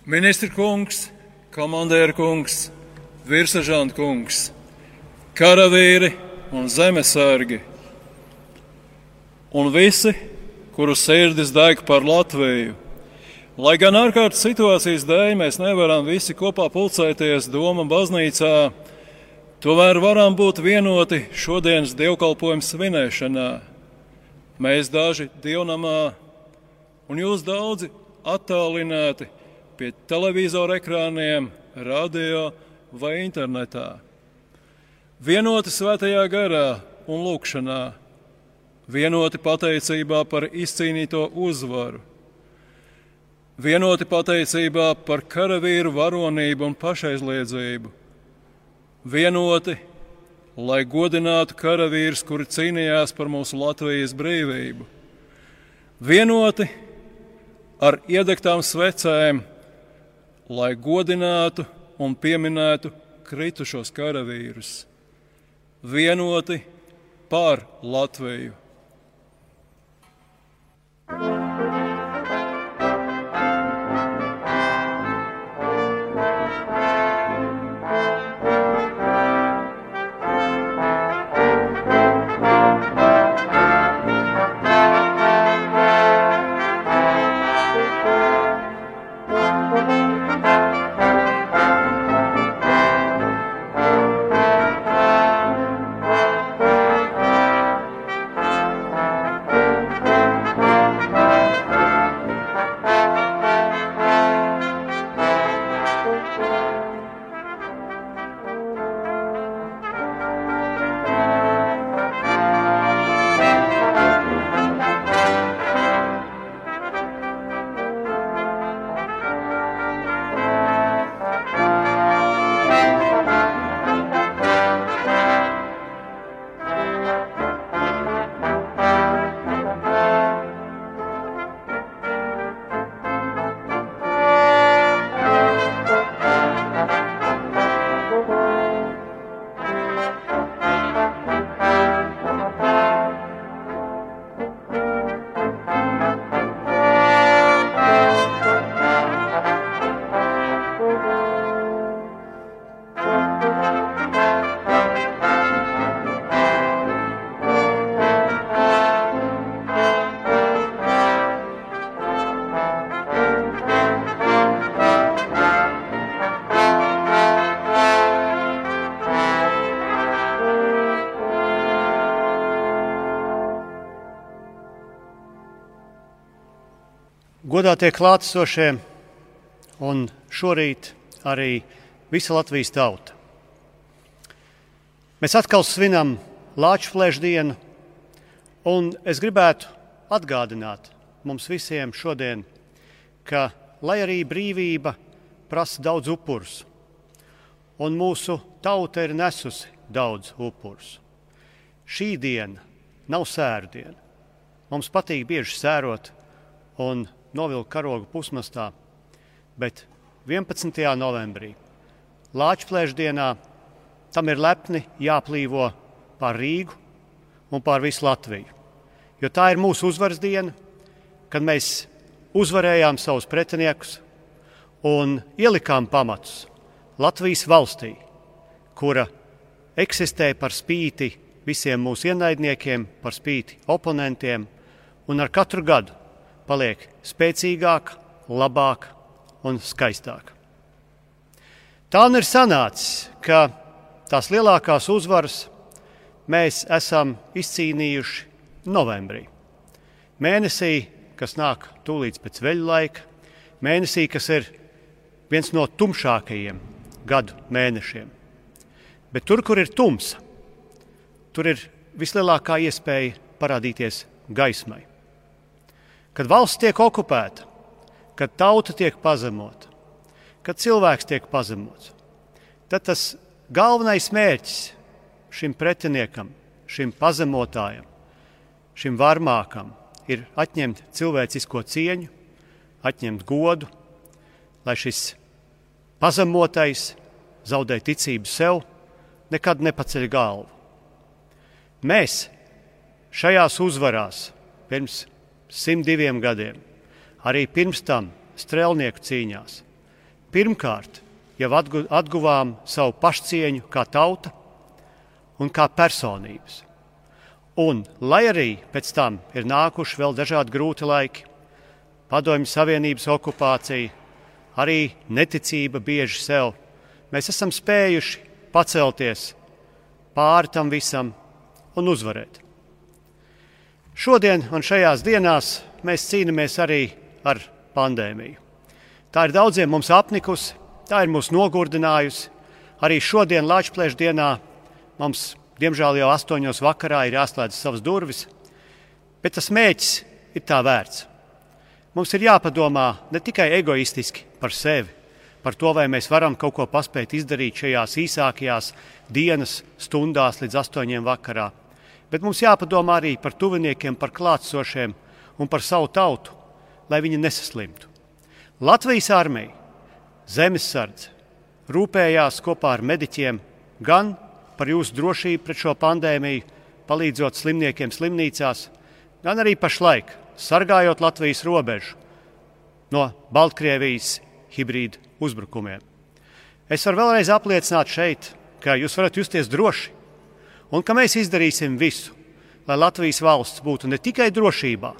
Ministra kungs, komandēra kungs, virsseržanta kungs, karavīri un zemesargi un visi, kuru sirdis deg par Latviju. Lai gan ārkārtas situācijas dēļ mēs nevaram visi kopā pulcēties Doma baznīcā, tomēr varam būt vienoti šodienas dievkalpojuma svinēšanā. Mēs daži dievnamā un jūs daudzi attālināti pie televizora ekrāniem, radio vai internetā. Vienoti svētajā garā un lūkšanā, vienoti pateicībā par izcīnīto uzvaru, vienoti pateicībā par karavīru varonību un pašaizliedzību, vienoti, lai godinātu karavīrus, kuri cīnījās par mūsu Latvijas brīvību, vienoti ar iedegtām svecēm, lai godinātu un pieminētu kritušos karavīrus, vienoti par Latviju. Godātie klātesošie un šorīt arī visa Latvijas tauta. Mēs atkal svinam Lāčplēša dienu, un es gribētu atgādināt mums visiem šodien, ka, lai arī brīvība prasa daudz upurus, un mūsu tauta ir nesusi daudz upurus, šī diena nav sēru diena. Mums patīk bieži sērot un novilkt karogu pusmastā, bet 11. novembrī, Lāčplēša dienā, tam ir lepni jāplīvo pār Rīgu un pār visu Latviju. Jo tā ir mūsu uzvaras diena, kad mēs uzvarējām savus pretiniekus un ielikām pamatus Latvijas valstī, kura eksistē par spīti visiem mūsu ienaidniekiem, par spīti oponentiem, un ar katru gadu paliek spēcīgāk, labāk un skaistāk. Tā un ir sanācis, ka tās lielākās uzvaras mēs esam izcīnījuši novembrī. Mēnesī, kas nāk tūlīt pēc veļu laika, mēnesī, kas ir viens no tumšākajiem gadu mēnešiem. Bet tur, kur ir tumsa, tur ir vislielākā iespēja parādīties gaismai. Kad valsts tiek okupēta, kad tauta tiek pazemota, kad cilvēks tiek pazemots, tad tas galvenais mērķis šim pretiniekam, šim pazemotājam, šim varmākam ir atņemt cilvēcisko cieņu, atņemt godu, lai šis pazemotais zaudē ticību sev, nekad nepaceļ galvu. Mēs šajās uzvarās pirms 102 gadiem, arī pirms tam strēlnieku cīņās, pirmkārt jau atguvām savu pašcieņu kā tauta un kā personības. Un, lai arī pēc tam ir nākuši vēl dažādi grūti laiki, Padomju Savienības okupācija, arī neticība bieži sev, mēs esam spējuši pacelties pāri tam visam un uzvarēt. Šodien un šajās dienās mēs cīnāmies arī ar pandēmiju. Tā ir daudziem mums apnikusi, tā ir mūs nogurdinājusi. Arī šodien Lāčplēša dienā mums, diemžēl jau 8 vakarā, ir jāslēdz savas durvis, bet tas mērķis ir tā vērts. Mums ir jāpadomā ne tikai egoistiski par sevi, par to, vai mēs varam kaut ko paspēt izdarīt šajās īsākajās dienas stundās līdz 8 vakarā, bet mums jāpadomā arī par tuviniekiem, par klātsošiem un par savu tautu, lai viņi nesaslimtu. Latvijas armija, zemesardze rūpējās kopā ar mediķiem gan par jūsu drošību pret šo pandēmiju, palīdzot slimniekiem slimnīcās, gan arī pašlaik sargājot Latvijas robežu no Baltkrievijas hibrīdu uzbrukumiem. Es varu vēlreiz apliecināt šeit, ka jūs varat justies droši un ka mēs izdarīsim visu, lai Latvijas valsts būtu ne tikai drošībā,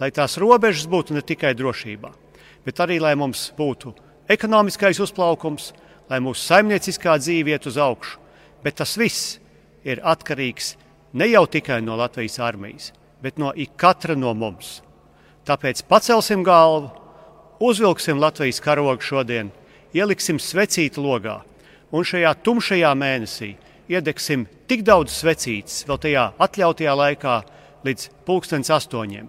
lai tās robežas būtu ne tikai drošībā, bet arī, lai mums būtu ekonomiskais uzplaukums, lai mūsu saimnieciskā dzīve iet uz augšu. Bet tas viss ir atkarīgs ne jau tikai no Latvijas armijas, bet no ikatra no mums. Tāpēc pacelsim galvu, uzvilksim Latvijas karogu šodien, ieliksim svecīti logā un šajā tumšajā mēnesī iedegsim tik daudz svecītes vēl tajā atļautajā laikā līdz 8:00,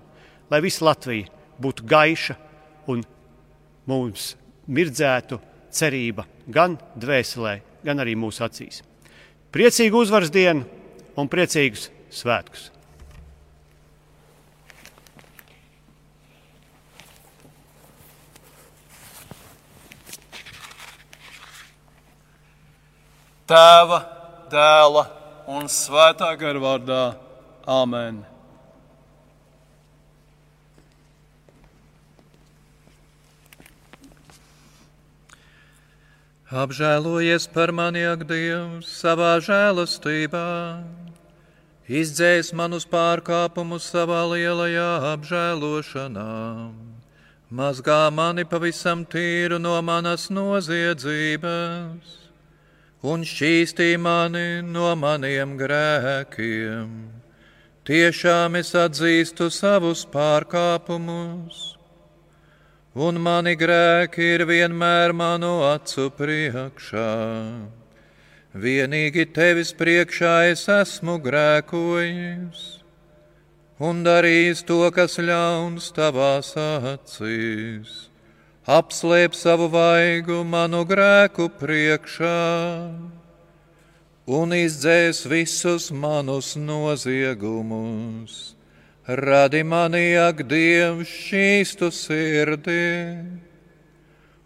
lai visa Latvija būtu gaiša un mums mirdzētu cerība gan dvēselē, gan arī mūsu acīs. Priecīgu uzvaras dienu un priecīgus svētkus! Tēva, Dēla un Svētā gara vārdā. Āmen. Apžēlojies par mani, ak, Dievs, savā žēlastībā, izdzēs manus pārkāpumus savā lielajā apžēlošanā, mazgā mani pavisam tīru no manas noziedzības un šķīstī mani no maniem grēkiem. Tiešām es atzīstu savus pārkāpumus, un mani grēki ir vienmēr manu acu priekšā. Vienīgi tevis priekšā es esmu grēkojis un darījis to, kas ļauns tavās acīs. Apslēp savu vaigu manu grēku priekšā un izdzēs visus manus noziegumus. Radi mani, ak, Dievs, šķīstu sirdi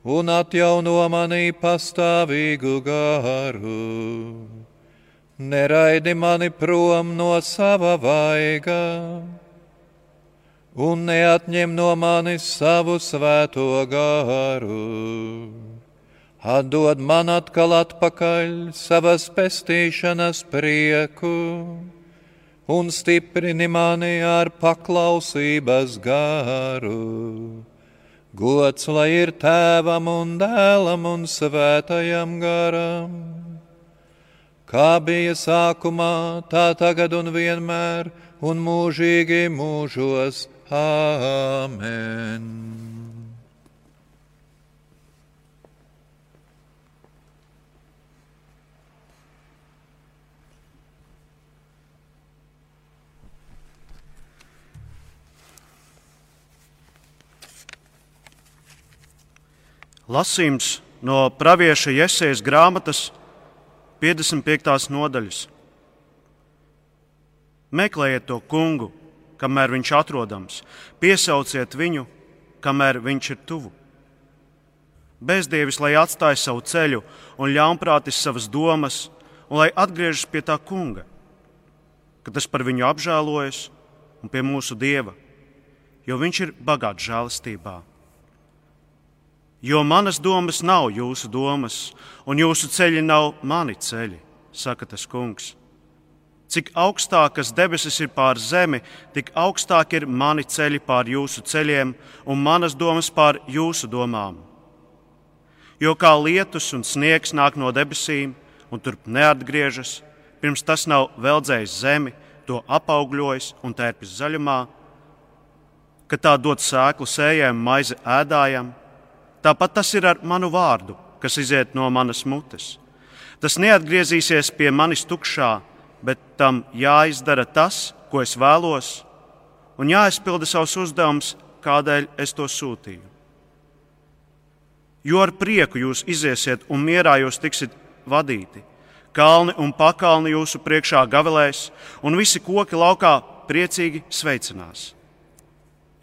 un atjauno manī pastāvīgu garu. Neraidi mani prom no sava vaiga un neatņem no manis savu svēto garu. Atdod man atkal atpakaļ savas pestīšanas prieku un stiprini mani ar paklausības garu. Gods lai ir Tēvam un Dēlam un Svētajam garam, kā bija sākumā, tā tagad un vienmēr un mūžīgi mūžos. Āmen. Lasījums no pravieša Jesejas grāmatas 55. nodaļas. Meklējiet to kungu, kamēr viņš atrodams, piesauciet viņu, kamēr viņš ir tuvu. Bezdievis, lai atstāj savu ceļu un ļaunprātis savas domas, un lai atgriežas pie tā kunga, ka tas par viņu apžēlojas un pie mūsu Dieva, jo viņš ir bagāts žēlastībā. Jo manas domas nav jūsu domas, un jūsu ceļi nav mani ceļi, saka tas kungs. Cik augstākas debesis ir pār zemi, tik augstāk ir mani ceļi pār jūsu ceļiem un manas domas pār jūsu domām. Jo kā lietus un sniegs nāk no debesīm un turp neatgriežas, pirms tas nav veldzējis zemi, to apaugļojis un tērpis zaļumā, ka tā dod sēklu sējiem, maizi ēdājam, tāpat tas ir ar manu vārdu, kas iziet no manas mutes. Tas neatgriezīsies pie manis tukšā, bet tam jāizdara tas, ko es vēlos, un jāizpilda savs uzdevums, kādēļ es to sūtīju. Jo ar prieku jūs iziesiet un mierā jūs tiksit vadīti. Kalni un pakalni jūsu priekšā gavilēs, un visi koki laukā priecīgi sveicinās.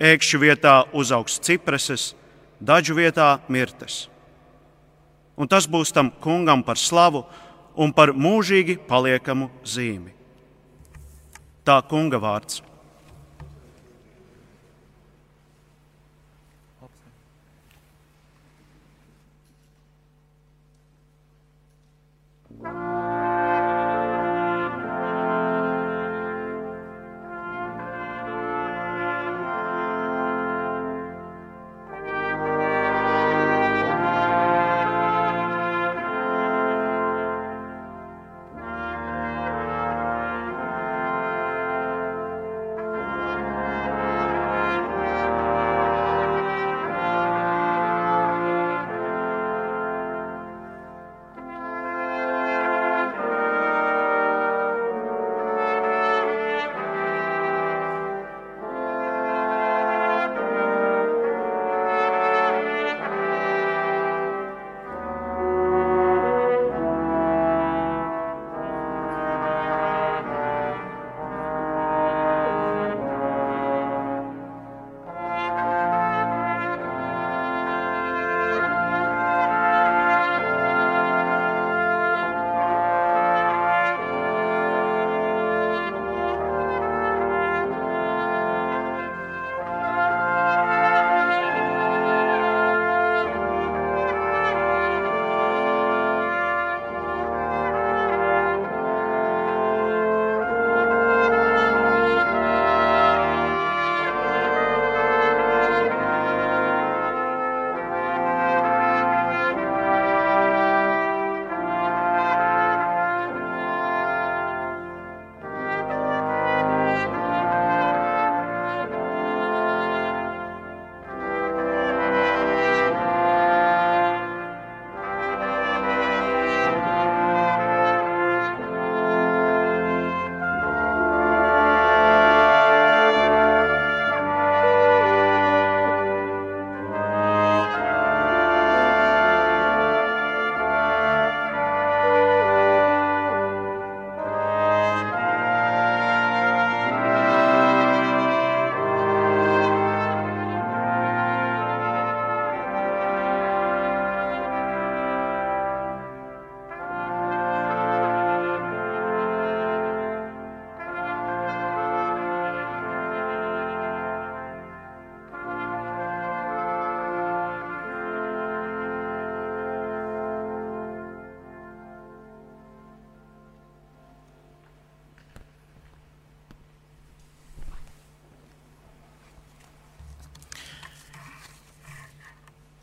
Ēkšķu vietā uzaugs cipreses, daļu vietā mirtes. Un tas būs tam kungam par slavu un par mūžīgi paliekamu zīmi. Tā kunga vārds.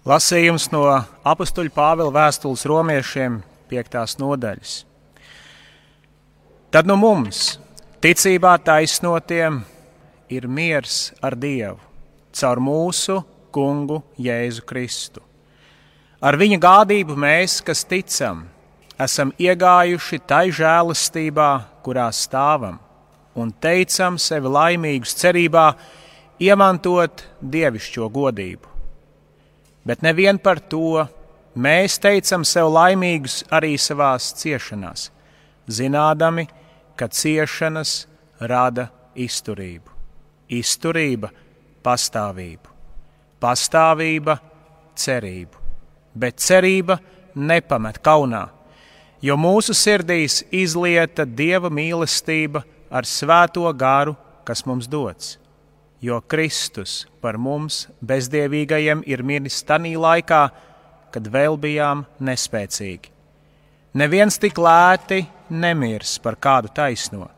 Lasījums no apustuļa Pāvila vēstules romiešiem 5. nodaļas. Tad nu mums, ticībā taisnotiem, ir miers ar Dievu, caur mūsu kungu Jēzu Kristu. Ar viņa gādību mēs, kas ticam, esam iegājuši tai žēlastībā, kurā stāvam, un teicam sevi laimīgus cerībā iemantot dievišķo godību. Bet nevien par to, mēs teicam sev laimīgus arī savās ciešanās, zinādami, ka ciešanas rada izturību, izturība pastāvību, pastāvība cerību, bet cerība nepamet kaunā, jo mūsu sirdīs izlieta Dieva mīlestība ar svēto garu, kas mums dots. jo Kristus par mums bezdievīgajiem ir miris tanī laikā, kad vēl bijām nespēcīgi. Neviens tik lēti nemirs par kādu taisno,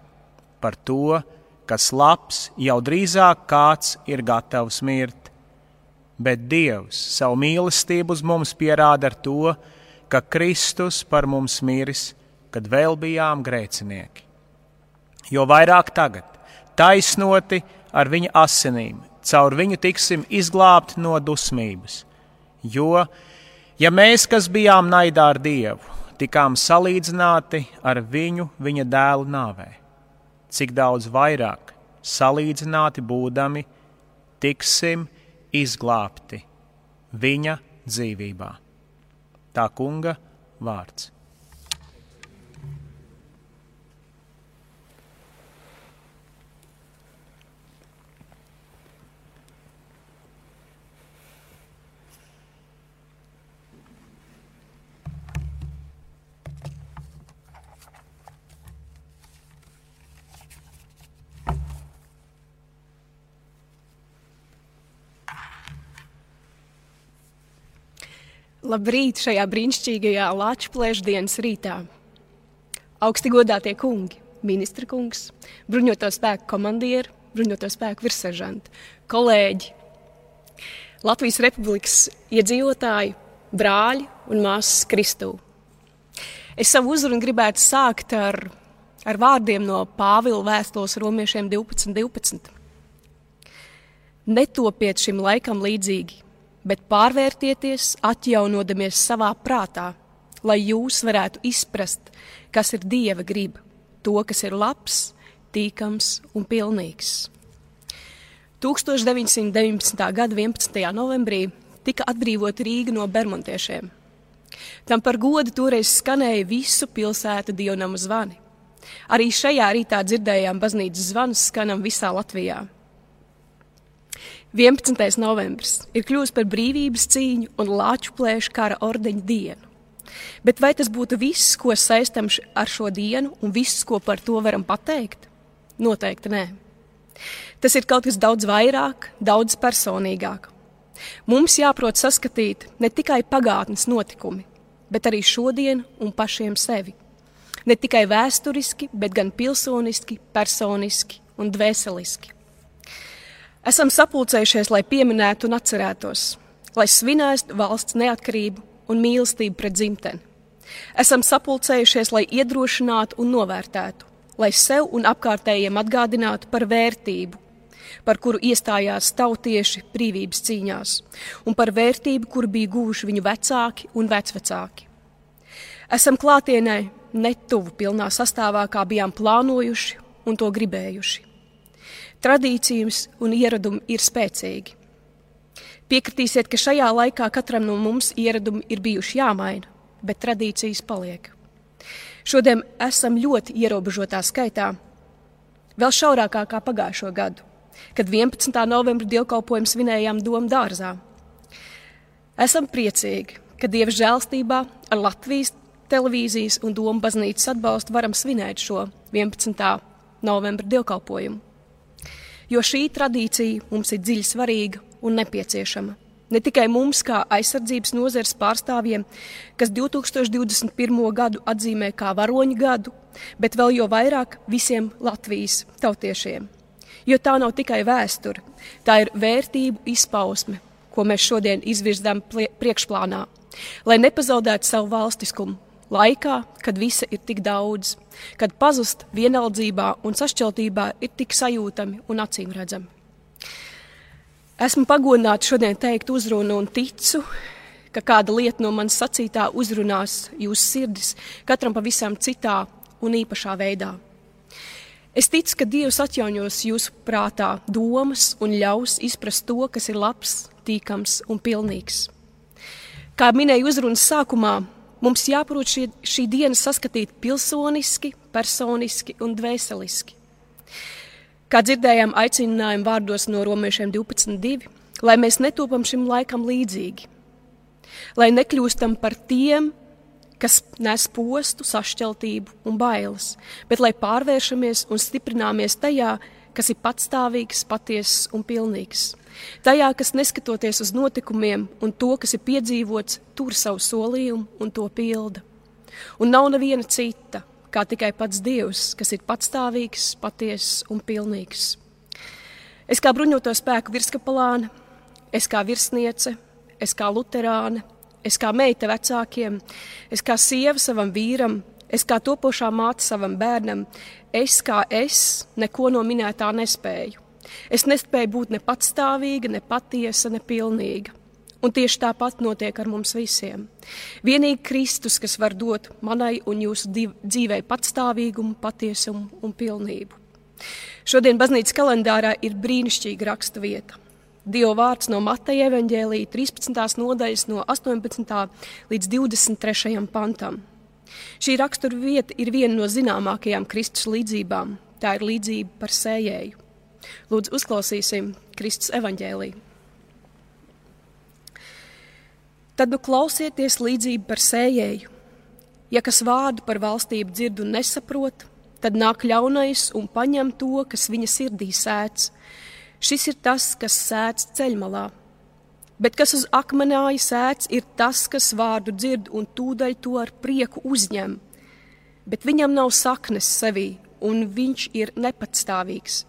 par to, kas labs, jau drīzāk kāds ir gatavs mirt. Bet Dievs savu mīlestību uz mums pierāda ar to, ka Kristus par mums miris, kad vēl bijām grēcinieki. Jo vairāk tagad, taisnoti ar viņa asinīm, caur viņu tiksim izglābti no dusmības. Jo, ja mēs, kas bijām naidā ar Dievu, tikām salīdzināti ar viņu viņa dēlu nāvē, cik daudz vairāk salīdzināti būdami tiksim izglābti viņa dzīvībā. Tā kunga vārds. Labrīt šajā brīnišķīgajā Lačplēša dienas rītā. Augsti godātie kungi, ministra kungs, bruņoto spēku komandieri, bruņoto spēku virsseržanti, kolēģi, Latvijas Republikas iedzīvotāji, brāļi un māsas Kristū. Es savu uzrunu gribētu sākt ar vārdiem no Pāvila vēstules romiešiem 12:12. Netopiet šim laikam līdzīgi, bet pārvērtieties, atjaunodamies savā prātā, lai jūs varētu izprast, kas ir Dieva griba, to, kas ir labs, tīkams un pilnīgs. 1919. gada 11. novembrī tika atbrīvota Rīga no bermontiešiem. Tam par godu toreiz skanēja visu pilsētu dievnamu zvani. Arī šajā rītā dzirdējām baznīcas zvanus skanam visā Latvijā. 11. novembris ir kļuvis par brīvības cīņu un Lačplēša kara ordeņa dienu. Bet vai tas būtu viss, ko saistam ar šo dienu un viss, ko par to varam pateikt? Noteikti nē. Tas ir kaut kas daudz vairāk, daudz personīgāk. Mums jāprot saskatīt ne tikai pagātnes notikumi, bet arī šodienu un pašiem sevi. Ne tikai vēsturiski, bet gan pilsoniski, personiski un dvēseliski. Esam sapulcējušies, lai pieminētu un atcerētos, lai svinētu valsts neatkarību un mīlestību pret dzimteni. Esam sapulcējušies, lai iedrošinātu un novērtētu, lai sev un apkārtējiem atgādinātu par vērtību, par kuru iestājās tautieši brīvības cīņās, un par vērtību, kuru bija guvuši viņu vecāki un vecvecāki. Esam klātienē netuvu pilnā sastāvā, kā bijām plānojuši un to gribējuši. Tradīcijas un ieradumi ir spēcīgi. Piekritīsiet, ka šajā laikā katram no mums ieradumi ir bijuši jāmaina, bet tradīcijas paliek. Šodien esam ļoti ierobežotā skaitā, vēl šaurākā kā pagājušo gadu, kad 11. novembra dievkalpojumu svinējām Doma dārzā. Esam priecīgi, ka Dieva žēlstībā ar Latvijas televīzijas un Doma baznīcas atbalstu varam svinēt šo 11. novembra dievkalpojumu. Jo šī tradīcija mums ir dziļi svarīga un nepieciešama. Ne tikai mums, kā aizsardzības nozares pārstāvjiem, kas 2021. gadu atzīmē kā varoņu gadu, bet vēl jo vairāk visiem Latvijas tautiešiem. Jo tā nav tikai vēsture, tā ir vērtību izpausme, ko mēs šodien izvirzām priekšplānā, lai nepazaudētu savu valstiskumu laikā, kad visa ir tik daudz, kad pazust vienaldzībā un sašķeltībā ir tik sajūtami un acīmredzami. Esmu pagodināta šodien teikt uzrunu un ticu, ka kāda lieta no manas sacītā uzrunās jūsu sirdis, katram pavisam citā un īpašā veidā. Es ticu, ka Dievs atjaunos jūsu prātā domas un ļaus izprast to, kas ir labs, tīkams un pilnīgs. Kā minēju uzrunas sākumā, mums jāprot šī diena saskatīt pilsoniski, personiski un dvēseliski. Kā dzirdējām aicinājumu vārdos no romiešiem 12:2, lai mēs netopam šim laikam līdzīgi, lai nekļūstam par tiem, kas nes postu, sašķeltību un bailes, bet lai pārvēršamies un stiprināmies tajā, kas ir patstāvīgs, patiess un pilnīgs. Tajā, kas neskatoties uz notikumiem un to, kas ir piedzīvots, tur savu solījumu un to pilda. Un nav neviena cita, kā tikai pats Dievs, kas ir patstāvīgs, patiess un pilnīgs. Es kā bruņoto spēku virskapelāne, es kā virsniece, es kā luterāne, es kā meita vecākiem, es kā sieva savam vīram, es kā topošā māte savam bērnam, es neko no minētā nespēju. Es nespēju būt ne patstāvīga, ne patiesa, ne pilnīga. Un tieši tāpat notiek ar mums visiem. Vienīgi Kristus, kas var dot manai un jūsu dzīvei patstāvīgumu, patiesumu un pilnību. Šodien baznīcas kalendārā ir brīnišķīga raksta vieta. Dieva vārds no Mateja evaņģēlija 13. nodaļas no 18. līdz 23. pantam. Šī rakstura vieta ir viena no zināmākajām Kristus līdzībām. Tā ir līdzība par sējēju. Lūdzu, uzklausīsim Kristus evaņģēliju. Tad nu klausieties līdzību par sējēju. Ja kas vārdu par valstību dzird un nesaprot, tad nāk ļaunais un paņem to, kas viņa sirdī sēts. Šis ir tas, kas sēts ceļmalā. Bet kas uz akmenāja sēts, ir tas, kas vārdu dzird un tūdaļ to ar prieku uzņem. Bet viņam nav saknes sevī, un viņš ir nepatstāvīgs.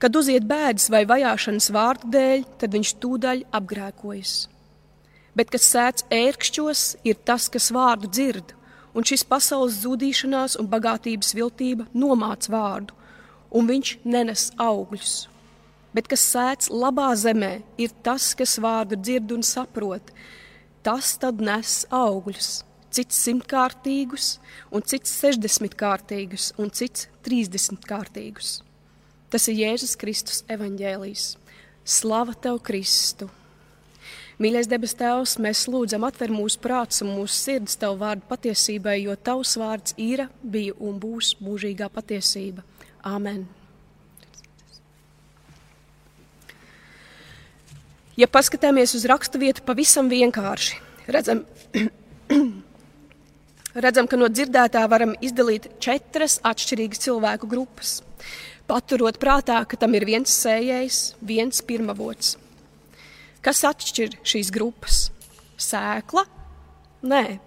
Kad uziet bēdas vai vajāšanas vārdu dēļ, tad viņš tūdaļ apgrēkojas. Bet kas sēts ērkšķos, ir tas, kas vārdu dzird, un šis pasaules zudīšanās un bagātības viltība nomāc vārdu, un viņš nenes augļus. Bet kas sēts labā zemē, ir tas, kas vārdu dzird un saprot. Tas tad nes augļus, cits 100-kārtīgus, un cits 60-kārtīgus, un cits 30-kārtīgus. Tas ir Jēzus Kristus evaņģēlijs. Slava tev, Kristu! Mīļais debes Tēvs, mēs lūdzam atver mūsu prāts un mūsu sirds Tev vārdu patiesībai, jo Tavs vārds ir, bija un būs mūžīgā patiesība. Āmen. Ja paskatāmies uz rakstu vietu pavisam vienkārši, redzam, ka no dzirdētā varam izdalīt 4 atšķirīgas cilvēku grupas, paturot prātā, ka tam ir viens sējējs, viens pirmavots. Kas atšķir šīs grupas? Sēkla? Nē.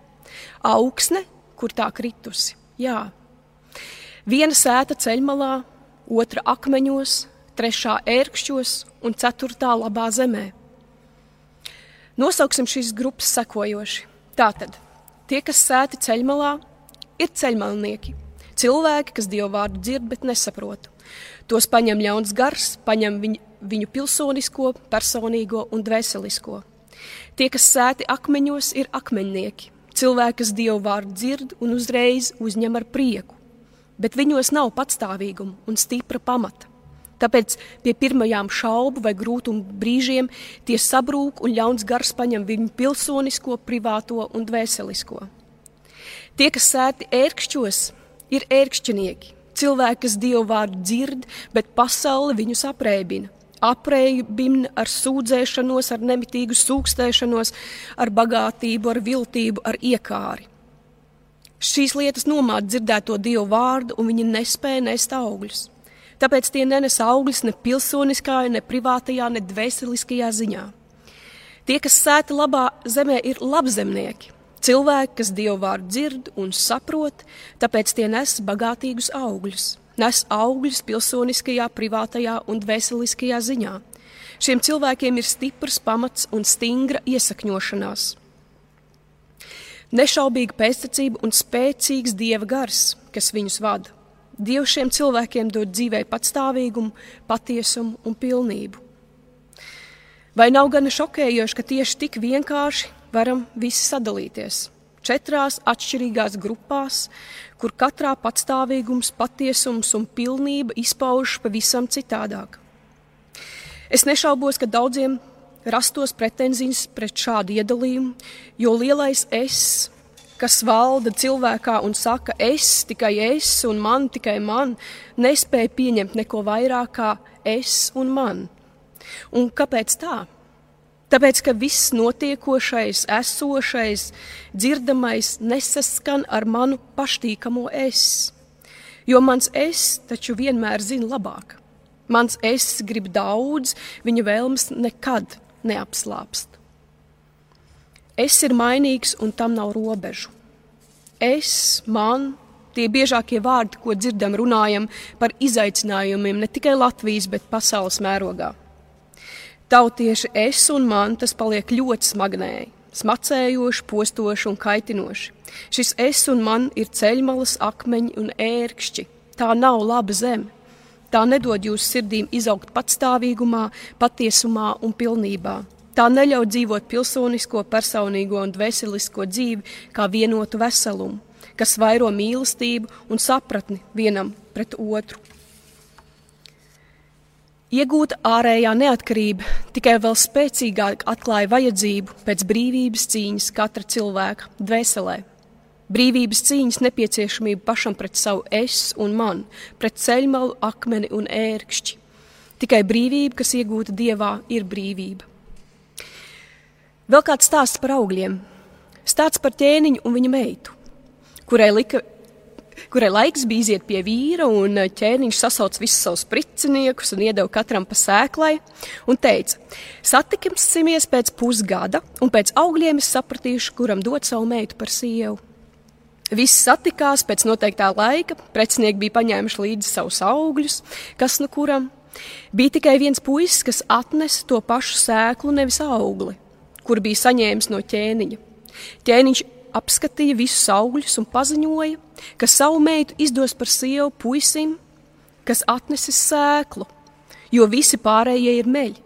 Augsne, kur tā kritusi? Jā. Viena sēta ceļmalā, otra akmeņos, 3. ērkšķos un 4. labā zemē. Nosauksim šīs grupas sekojoši. Tātad, tie, kas sēti ceļmalā, ir ceļmalnieki. Cilvēki, kas Dievu vārdu dzird, bet nesaprot. Tos paņem ļauns gars, paņem viņu pilsonisko, personīgo un dvēselisko. Tie, kas sēti akmeņos, ir akmeņnieki. Cilvēki, kas Dievu vārdu dzird un uzreiz uzņem ar prieku. Bet viņos nav patstāvīguma un stipra pamata. Tāpēc pie pirmajām šaubu vai grūtumu brīžiem tie sabrūk un ļauns gars paņem viņu pilsonisko, privāto un dvēselisko. Tie, kas sēti ērkšķos, ir ērkšķinieki. Cilvēki, kas Dievu vārdu dzird, bet pasaule viņus aprēbina. Aprēbina ar sūdzēšanos, ar nemitīgu sūkstēšanos, ar bagātību, ar viltību, ar iekāri. Šīs lietas nomāca dzirdēto Dievu vārdu, un viņi nespēja nest augļus. Tāpēc tie nenes augļus ne pilsoniskā, ne privātajā, ne dvēseliskajā ziņā. Tie, kas sēti labā zemē, ir labzemnieki. Cilvēki, kas Dievu vārdu dzird un saprot, tāpēc tie nes bagātīgus augļus. Nes augļus pilsoniskajā, privātajā un dvēseliskajā ziņā. Šiem cilvēkiem ir stiprs pamats un stingra iesakņošanās. Nešaubīga pēctecība un spēcīgs Dieva gars, kas viņus vada. Dievs šiem cilvēkiem dod dzīvei patstāvīgumu, patiesumu un pilnību. Vai nav gana šokējoši, ka tieši tik vienkārši varam visi sadalīties 4 atšķirīgās grupās, kur katrā patstāvīgums, patiesums un pilnība izpaužas pavisam citādāk? Es nešaubos, ka daudziem rastos pretenzijas pret šādu iedalījumu, jo lielais es, kas valda cilvēkā un saka es, tikai es un man, tikai man, nespēja pieņemt neko vairāk kā es un man. Un kāpēc tā? Tāpēc, ka viss notiekošais, esošais, dzirdamais nesaskan ar manu paštīkamo es. Jo mans es taču vienmēr zina labāk. Mans es grib daudz, viņa vēlmes nekad neapslāpst. Es ir mainīgs un tam nav robežu. Es, man, tie biežākie vārdi, ko dzirdam, runājam par izaicinājumiem ne tikai Latvijas, bet pasaules mērogā. Tautieši es un man tas paliek ļoti smagnēji, smacējoši, postoši un kaitinoši. Šis es un man ir ceļmalas, akmeņi un ērkšķi. Tā nav laba zeme. Tā nedod jūsu sirdīm izaugt patstāvīgumā, patiesumā un pilnībā. Tā neļauj dzīvot pilsonisko, personīgo un dvēselisko dzīvi kā vienotu veselumu, kas vairo mīlestību un sapratni vienam pret otru. Iegūta ārējā neatkarība tikai vēl spēcīgāk atklāja vajadzību pēc brīvības cīņas katra cilvēka dvēselē. Brīvības cīņas nepieciešamība pašam pret savu es un man, pret ceļmalu, akmeni un ērkšķi. Tikai brīvība, kas iegūta Dievā, ir brīvība. Vēl kāds stāsts par augļiem. Stāsts par ķēniņu un viņa meitu, kurai laiks bija iziet pie vīra, un ķēniņš sasauc visus savus priciniekus un iedeva katram pa sēklai un teica: satiksimies pēc pusgada, un pēc augļiem es sapratīšu, kuram dot savu meitu par sievu. Visi satikās pēc noteiktā laika, precinieki bija paņēmuši līdzi savus augļus, kas nu kuram. Bija tikai viens puisis, kas atnesa to pašu sēklu, nevis augli, kur bija saņēmis no ķēniņa. Ķēniņš apskatīja visus augļus un paziņoja, ka savu meitu izdos par sievu puisim, kas atnesis sēklu, jo visi pārējie ir meļi,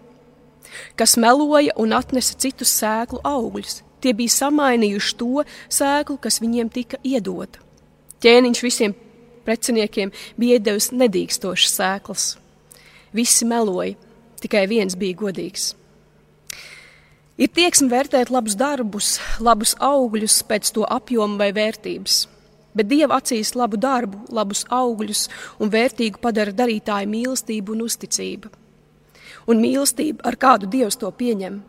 kas meloja un atnesa citus sēklu augļus. Tie bija samainījuši to sēklu, kas viņiem tika iedota. Ķēniņš visiem preciniekiem bija iedevis nedīkstošas sēklas. Visi meloja, tikai viens bija godīgs. Ir tieksme vērtēt labus darbus, labus augļus pēc to apjoma vai vērtības, bet Dieva acīs labu darbu, labus augļus un vērtīgu padara darītāju mīlestību un uzticība. Un mīlestība, ar kādu Dievs to pieņem.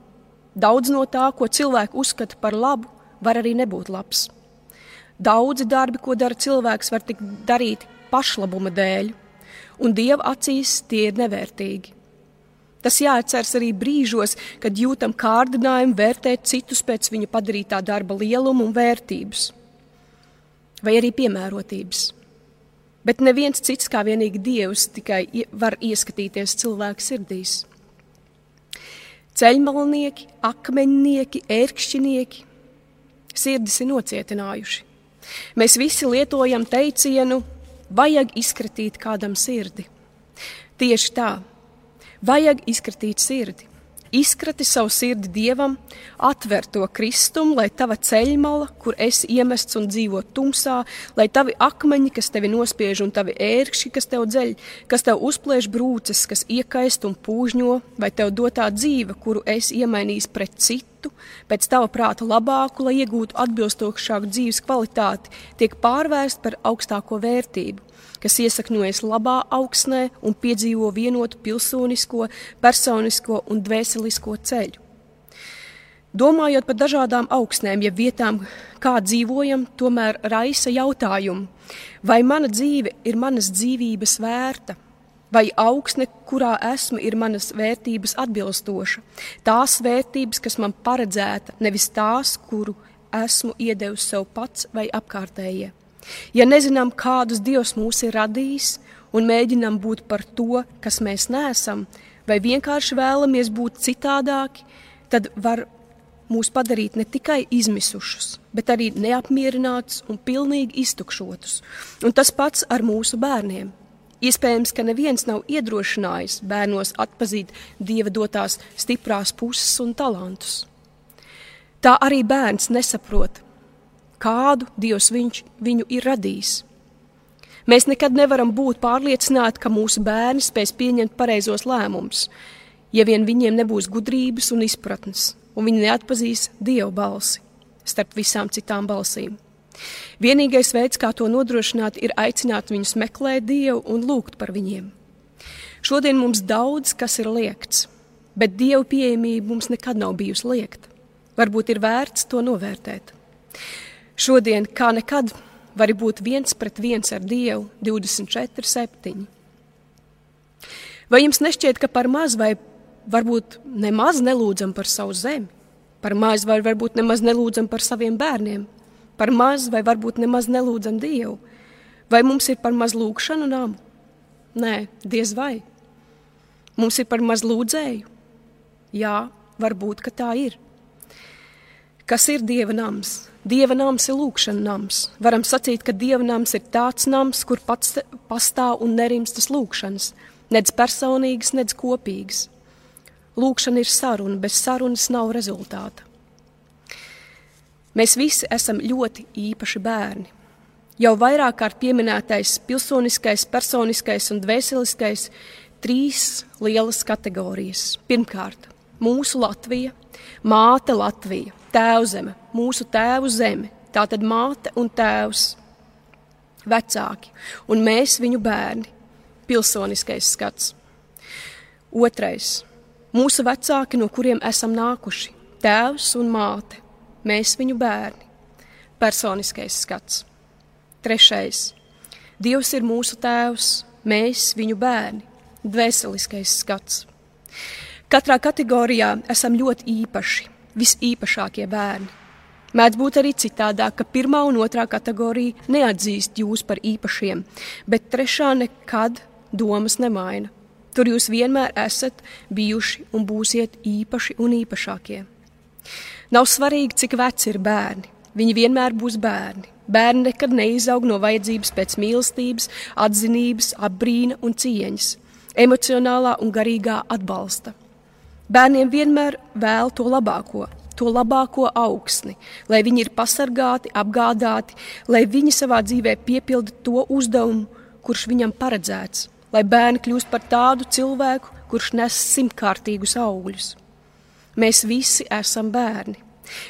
Daudz no tā, ko cilvēki uzskata par labu, var arī nebūt labs. Daudzi darbi, ko dara cilvēks, var tikt darīti pašlabuma dēļ, un Dieva acīs tie ir nevērtīgi. Tas jāatceras arī brīžos, kad jūtam kārdinājumu vērtēt citus pēc viņa padarītā darba lieluma un vērtības, vai arī piemērotības. Bet neviens cits kā vienīgi Dievs tikai var ieskatīties cilvēku sirdīs. Ceļmalnieki, akmeņnieki, ērkšķinieki sirdis ir nocietinājuši. Mēs visi lietojam teicienu, vajag izkratīt kādam sirdi. Tieši tā, vajag izkratīt sirdi. Izkrati savu sirdi Dievam, atver to kristumu, lai tava ceļmala, kur esi iemests un dzīvo tumsā, lai tavi akmeņi, kas tevi nospiež, un tavi ērkšķi, kas tev dzeļ, kas tev uzplēš brūces, kas iekaist un pūžņo, vai tev dotā dzīve, kuru esi iemainījis pret citu, pēc tava prāta labāku, lai iegūtu atbilstošāku dzīves kvalitāti, tiek pārvērst par augstāko vērtību, kas iesakņojas labā augsnē un piedzīvo vienotu pilsonisko, personisko un dvēselisko ceļu. Domājot par dažādām augsnēm, ja vietām, kā dzīvojam, tomēr raisa jautājumu, vai mana dzīve ir manas dzīvības vērta, vai augsne, kurā esmu, ir manas vērtības atbilstoša, tās vērtības, kas man paredzēta, nevis tās, kuru esmu iedevis sev pats vai apkārtējie. Ja nezinām, kādus Dievs mūs ir radījis un mēģinām būt par to, kas mēs neesam, vai vienkārši vēlamies būt citādāki, tad var mūs padarīt ne tikai izmisušus, bet arī neapmierinātus un pilnīgi iztukšotus. Un tas pats ar mūsu bērniem. Iespējams, ka neviens nav iedrošinājis bērnos atpazīt Dieva dotās stiprās puses un talantus. Tā arī bērns nesaprot, kādu Dievs viņu ir radījis. Mēs nekad nevaram būt pārliecināti, ka mūsu bērni spēs pieņemt pareizos lēmumus, ja vien viņiem nebūs gudrības un izpratnes, un viņi neatpazīs Dieva balsi starp visām citām balsīm. Vienīgais veids, kā to nodrošināt, ir aicināt viņus meklēt Dievu un lūgt par viņiem. Šodien mums daudz, kas ir liegts, bet Dieva pieejamība mums nekad nav bijusi liegta. Varbūt ir vērts to novērtēt. Šodien, kā nekad, vari būt 1-1 ar Dievu 24/7. Vai jums nešķiet, ka par maz vai varbūt nemaz nelūdzam par savu zemi? Par maz vai varbūt nemaz nelūdzam par saviem bērniem? Par maz vai varbūt nemaz nelūdzam Dievu? Vai mums ir par maz lūgšanu namu? Nē, diez vai. Mums ir par maz lūdzēju? Jā, varbūt, ka tā ir. Kas ir Dieva nams? Dieva nams ir lūgšana nams. Varam sacīt, ka Dieva nams ir tāds nams, kur pats pastāv un nerimstas lūgšanas, nedz personīgas, nedz kopīgas. Lūgšana ir saruna, bez sarunas nav rezultāta. Mēs visi esam ļoti īpaši bērni. Jau vairāk kārt pieminētais pilsoniskais, personiskais un dvēseliskais 3 lielas kategorijas. Pirmkārt, mūsu Latvija, māte Latvija, tēvzeme, mūsu tēvu zeme, tātad māte un tēvs, vecāki, un mēs viņu bērni, pilsoniskais skats. Otrais, mūsu vecāki, no kuriem esam nākuši, tēvs un māte, mēs viņu bērni, personiskais skats. Trešais, Dievs ir mūsu tēvs, mēs viņu bērni, dvēseliskais skats. Katrā kategorijā esam ļoti īpaši, visīpašākie bērni. Mēdz būt arī citādāk, ka 1. un 2. kategorija neatzīst jūs par īpašiem, bet 3. nekad domas nemaina. Tur jūs vienmēr esat bijuši un būsiet īpaši un īpašākie. Nav svarīgi, cik veci ir bērni. Viņi vienmēr būs bērni. Bērni nekad neizaug no vajadzības pēc mīlestības, atzinības, apbrīna un cieņas, emocionālā un garīgā atbalsta. Bērniem vienmēr vēl to labāko augsni, lai viņi ir pasargāti, apgādāti, lai viņi savā dzīvē piepilda to uzdevumu, kurš viņam paredzēts, lai bērni kļūst par tādu cilvēku, kurš nes 100-kārtīgus augļus. Mēs visi esam bērni.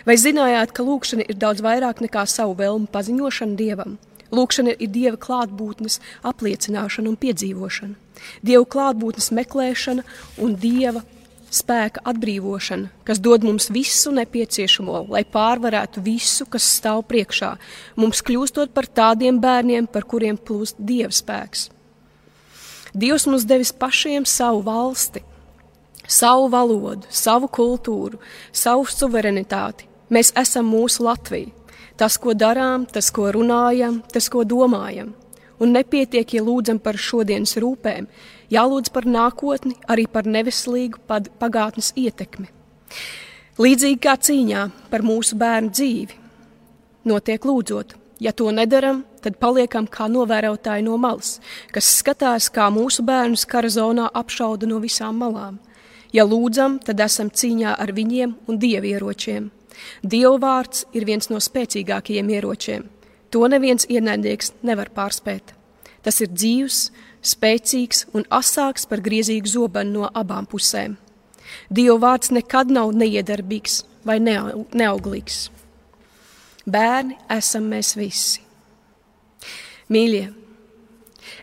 Vai zinājāt, ka lūgšana ir daudz vairāk nekā savu vēlmu paziņošana Dievam? Lūgšana ir Dieva klātbūtnes apliecināšana un piedzīvošana, Dieva klātbūtnes meklēšana un Dieva spēka atbrīvošana, kas dod mums visu nepieciešamo, lai pārvarētu visu, kas stāv priekšā, mums kļūstot par tādiem bērniem, par kuriem plūst Dieva spēks. Dievs mums devis pašiem savu valsti, savu valodu, savu kultūru, savu suverenitāti. Mēs esam mūsu Latvija. Tas, ko darām, tas, ko runājam, tas, ko domājam. Un nepietiek, ja lūdzam par šodienas rūpēm, jālūdz par nākotni, arī par neveselīgu pagātnes ietekmi. Līdzīgi kā cīņā par mūsu bērnu dzīvi, notiek lūdzot. Ja to nedaram, tad paliekam kā novērotāji no malas, kas skatās, kā mūsu bērnus kara zonā apšauda no visām malām. Ja lūdzam, tad esam cīņā ar viņiem un dievieročiem. Dieva vārds ir viens no spēcīgākajiem ieročiem. To neviens ienaidnieks nevar pārspēt. Tas ir dzīvs, spēcīgs un asāks par griezīgu zobenu no abām pusēm. Dieva vārds nekad nav neiedarbīgs vai neauglīgs. Bērni esam mēs visi. Mīļie,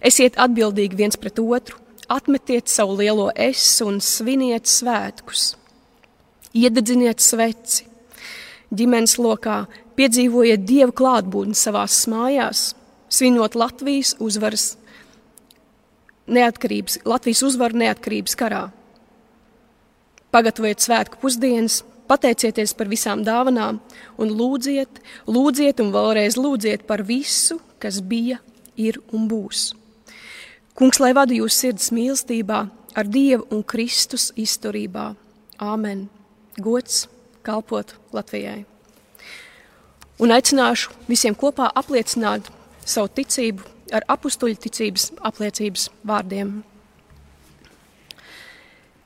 esiet atbildīgi viens pret otru, atmetiet savu lielo es un sviniet svētkus. Iededziniet sveci. Ģimenes lokā piedzīvojiet Dieva klātbūtni savās mājās, svinot Latvijas uzvaru neatkarības karā. Pagatavojiet svētku pusdienas, pateicieties par visām dāvanām un lūdziet un vēlreiz lūdziet par visu, kas bija, ir un būs. Kungs, lai vada jūs sirds mīlestībā, ar Dievu un Kristus izturībā. Āmen. Gods kalpot Latvijai. Un aicināšu visiem kopā apliecināt savu ticību ar apustuļu ticības apliecības vārdiem.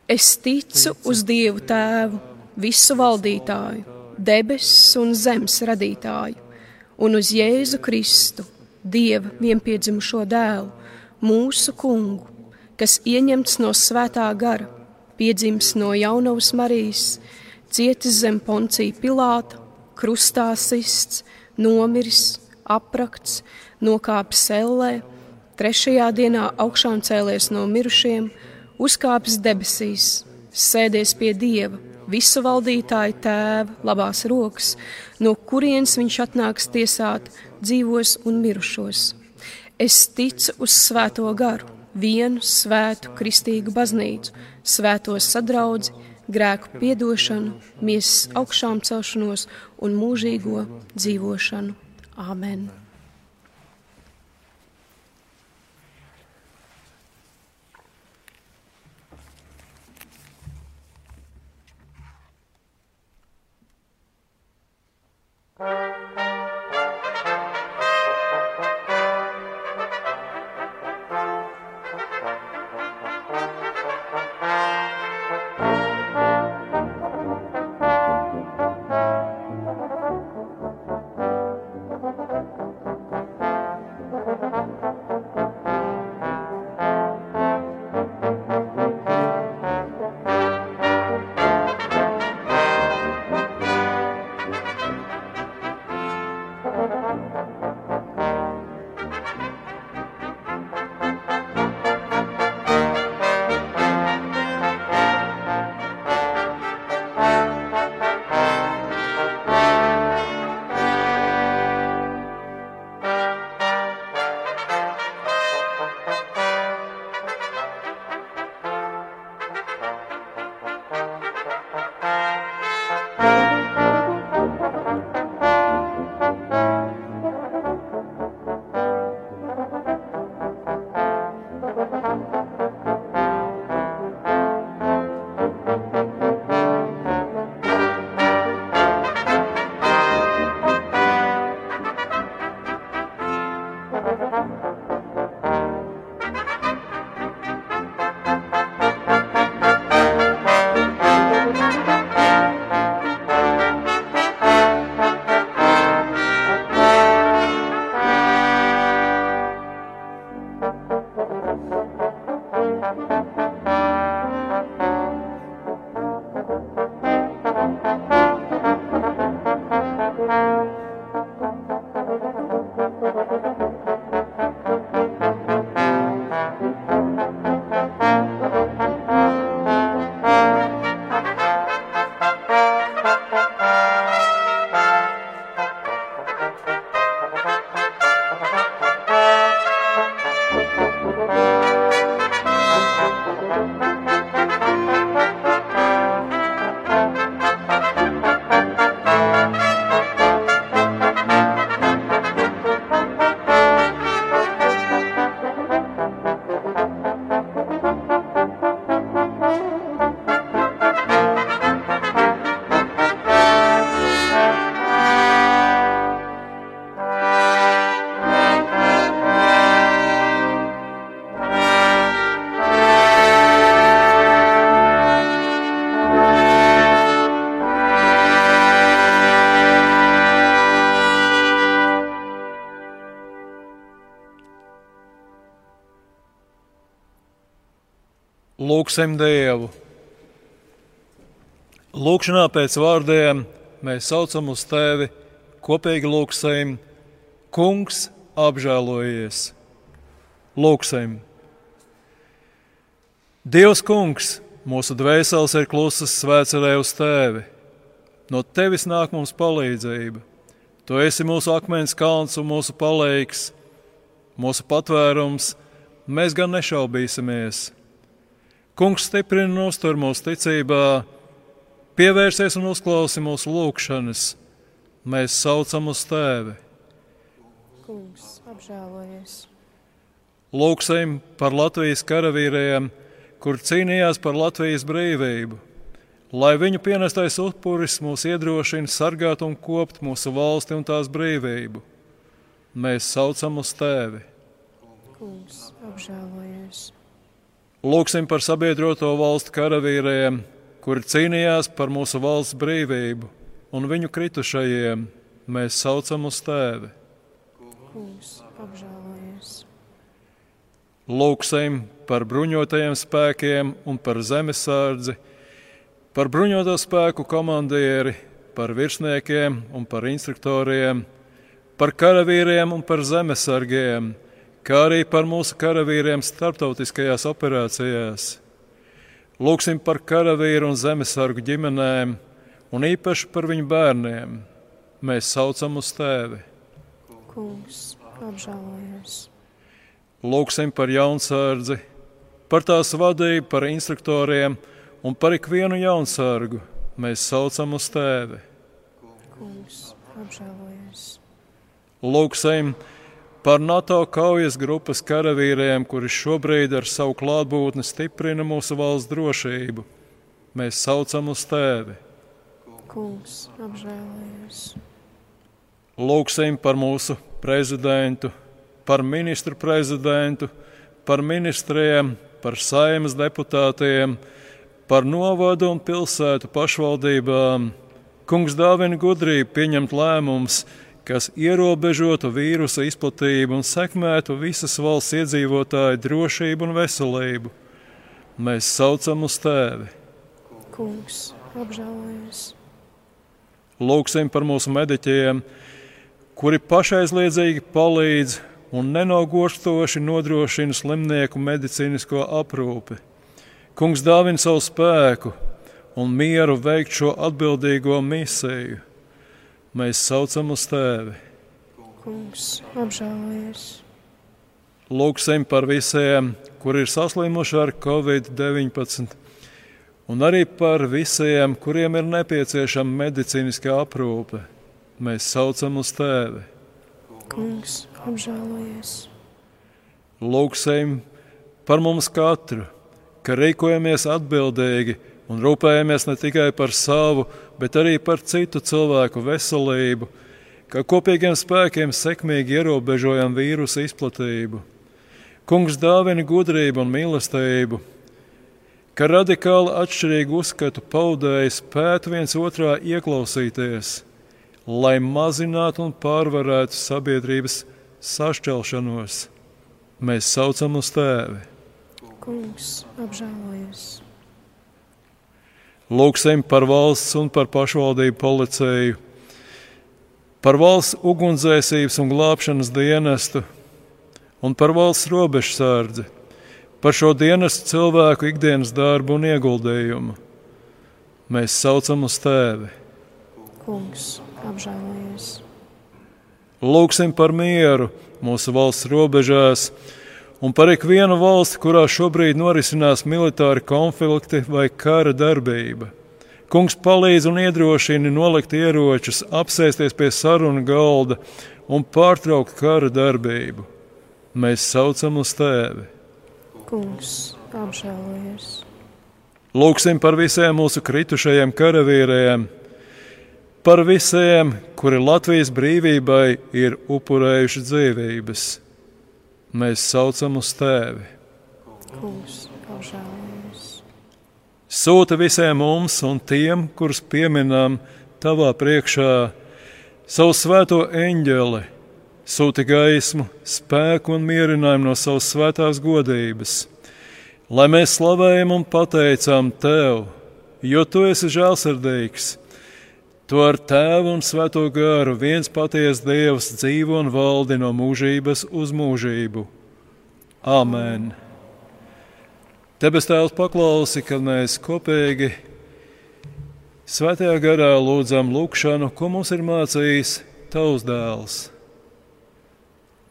Es ticu uz Dievu Tēvu, visu valdītāju, debesis un zemes radītāju, un uz Jēzu Kristu, Dieva vienpiedzimušo dēlu, mūsu kungu, kas ieņemts no svētā gara, piedzimis no jaunavas Marijas, cietis zem Poncija Pilāta, krustā sists, nomiris, aprakts, nokāpis ellē, 3. dienā augšām cēlies no mirušiem, uzkāpis debesīs, sēdies pie Dieva, visu valdītāju tēva labās rokas, no kurienes viņš atnāks tiesāt dzīvos un mirušos. Es ticu uz svēto garu, vienu svētu kristīgu baznīcu, svēto sadraudzi, grēku piedošanu, miesas augšām celšanos un mūžīgo dzīvošanu. Āmen! Lūksim Dievu. Lūkšanā pēc vārdiem mēs saucam uz Tevi, kopīgi lūksim: Kungs, apžēlojies! Lūksim! Dievs Kungs, mūsu dvēseles ir klusas, svēcerē uz Tevi. No Tevis nāk mums palīdzība. Tu esi mūsu akmens kalns un mūsu palīgs, mūsu patvērums, mēs gan nešaubīsimies. Kungs, stiprini un uztur mūsu ticībā, pievērsies un uzklausi mūsu lūgšanas. Mēs saucam uz Tevi. Kungs, apžēlojies! Lūksim par Latvijas karavīriem, kur cīnījās par Latvijas brīvību, lai viņu pienestais upuris mūs iedrošina sargāt un kopt mūsu valsti un tās brīvību. Mēs saucam uz Tevi. Kungs, apžēlojies! Lūksim par sabiedroto valstu karavīriem, kuri cīnījās par mūsu valsts brīvību, un viņu kritušajiem. Mēs saucam uz Tevi. Kungs, apžēlojies! Lūksim par bruņotajiem spēkiem un par zemesardzi, par bruņoto spēku komandieri, par virsniekiem un par instruktoriem, par karavīriem un par zemesargiem, kā arī par mūsu karavīriem starptautiskajās operācijās. Lūksim par karavīru un zemesargu ģimenēm, un īpaši par viņu bērniem. Mēs saucam uz Tevi. Kungs, apžēlojies. Lūksim par jaunsardzi, par tās vadību, par instruktoriem un par ikvienu jaunsargu. Mēs saucam uz Tevi. Kungs, apžēlojies. Lūksim par NATO kaujas grupas karavīriem, kuri šobrīd ar savu klātbūtni stiprina mūsu valsts drošību. Mēs saucam uz Tevi. Kungs, apžēlojies. Lūksim par mūsu prezidentu, par ministru prezidentu, par ministriem, par Saeimas deputātiem, par novadu un pilsētu pašvaldībām. Kungs dāvina gudrību pieņemt lēmumus, kas ierobežotu vīrusa izplatību un sekmētu visas valsts iedzīvotāju drošību un veselību. Mēs saucam uz Tevi. Kungs, apžēlojies. Lūksim par mūsu mediķiem, kuri pašaizliedzīgi palīdz un nenogurstoši nodrošina slimnieku medicīnisko aprūpi. Kungs dāvina savu spēku un mieru veikt šo atbildīgo misiju. Mēs saucam uz Tevi. Kungs, apžēlojies. Lūksim par visiem, kuri ir saslimuši ar Covid-19, un arī par visiem, kuriem ir nepieciešama medicīniskā aprūpe. Mēs saucam uz Tevi. Kungs, apžēlojies. Lūksim par mums katru, ka rīkojamies atbildīgi un rūpējamies ne tikai par savu, bet arī par citu cilvēku veselību, ka kopīgiem spēkiem sekmīgi ierobežojam vīrusa izplatību. Kungs dāvina gudrību un mīlestību, ka radikāli atšķirīgu uzskatu paudēji spētu viens otrā ieklausīties, lai mazinātu un pārvarētu sabiedrības sašķelšanos. Mēs saucam uz Tevi. Kungs, apžēlojies. Lūksim par valsts un par pašvaldību policiju, par valsts ugunsdzēsības un glābšanas dienestu un par valsts robežsardzi, par šo dienestu cilvēku ikdienas darbu un ieguldījumu. Mēs saucam uz Tevi. Kungs, apžēlojies. Lūksim par mieru mūsu valsts robežās un par ikvienu valsti, kurā šobrīd norisinās militāri konflikti vai kara darbība. Kungs palīdz un iedrošina nolikt ieročus, apsēsties pie sarunu galda un pārtraukt kara darbību. Mēs saucam uz Tevi. Kungs, apžēlojies. Lūksim par visiem mūsu kritušajiem karavīriem, par visiem, kuri Latvijas brīvībai ir upurējuši dzīvības. Mēs saucam uz Tevi. Kungs, apžēlojies. Sūta visiem mums un tiem, kurus pieminam Tavā priekšā, savu svēto eņģeli, sūti gaismu, spēku un mierinājumu no savas svētās godības, lai mēs slavējam un pateicam Tev, jo Tu esi žēlsirdīgs. Tu ar Tēvu un Svēto garu viens patiess Dievs dzīvo un valdi no mūžības uz mūžību. Āmen. Debes Tēvs, paklausi, kad mēs kopīgi Svētajā garā lūdzam lūgšanu, ko mums ir mācījis Tavs dēls.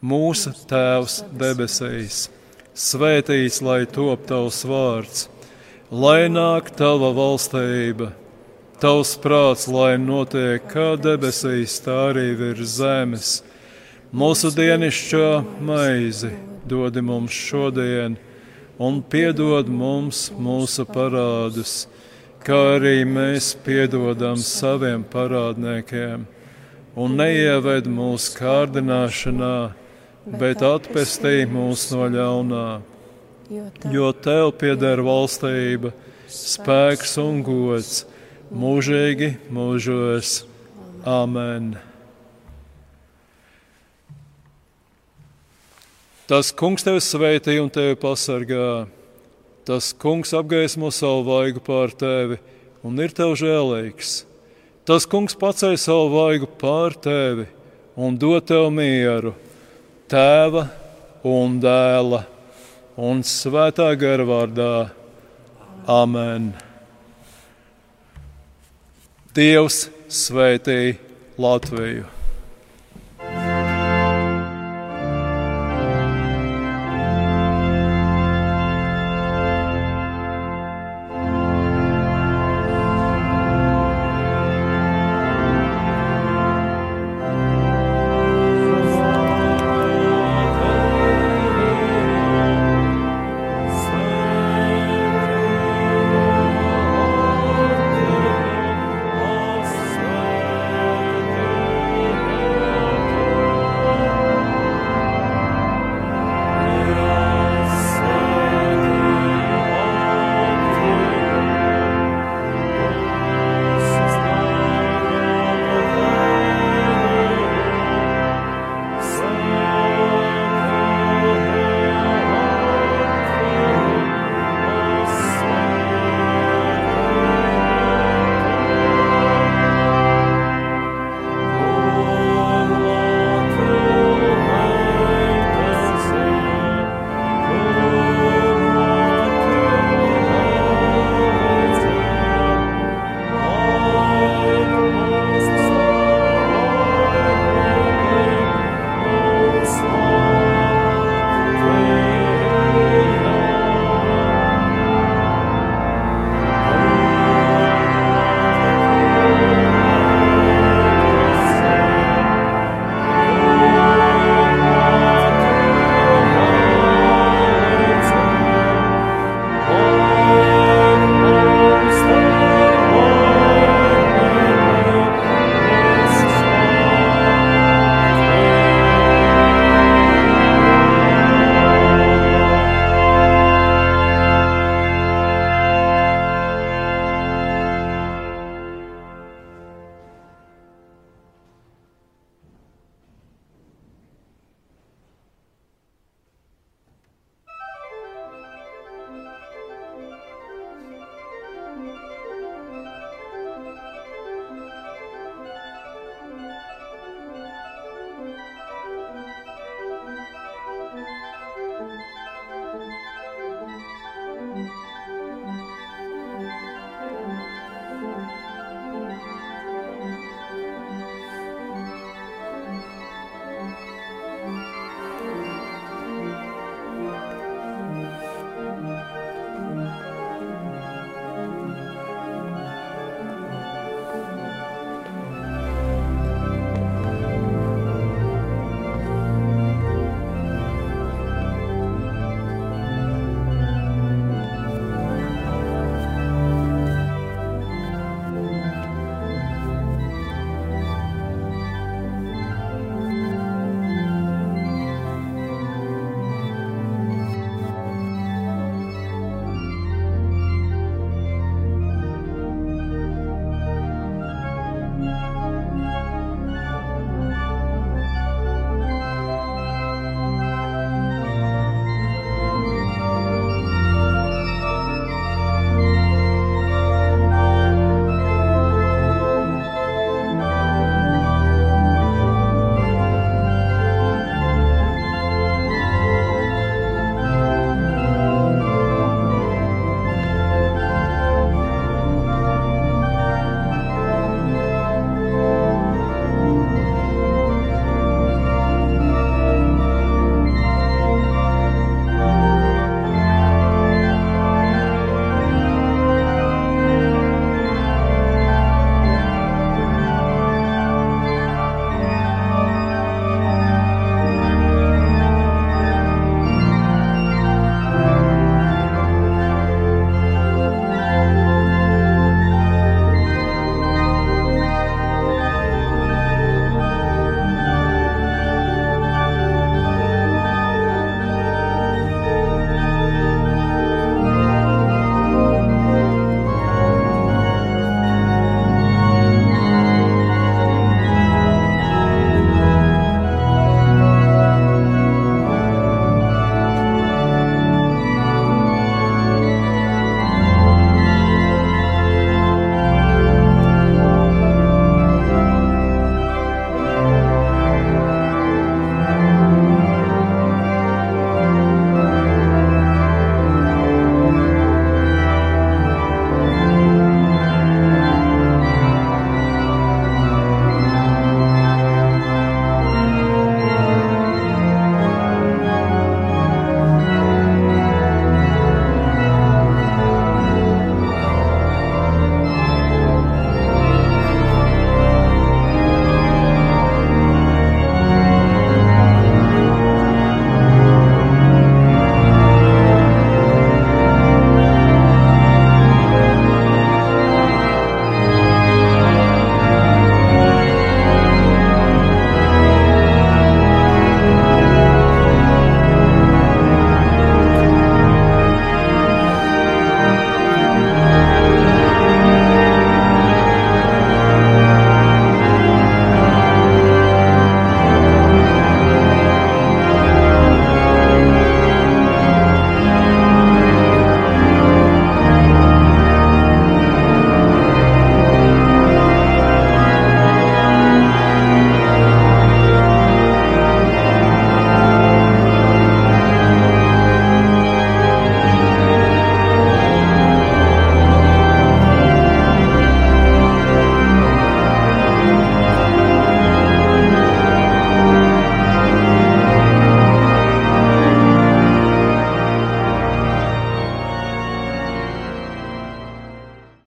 Mūsu Tēvs debesīs, svētīts lai top Tavs vārds, lai nāk Tava valstība. Tavs prāts, lai notiek kā debesīs, tā arī virs zemes. Mūsu dienascho maizi dod mums šodien, un piedod mums mūsu parādus, kā arī mēs piedodam saviem parādniekiem. Un neieved mūsu kārdināšanā, bet atpestī mūs no ļaunā. Jo Tev pieder valstība, spēks un gods, mūžīgi mūžos. Āmen. Tas Kungs tevi svētī un tevi pasargā. Tas Kungs apgaismo savu vaigu pār tevi un ir tev žēlīgs. Tas Kungs paceļ savu vaigu pār tevi un dod tev mieru. Tēva un Dēla un Svētā gara vārdā. Amen. Dievs svētī Latviju!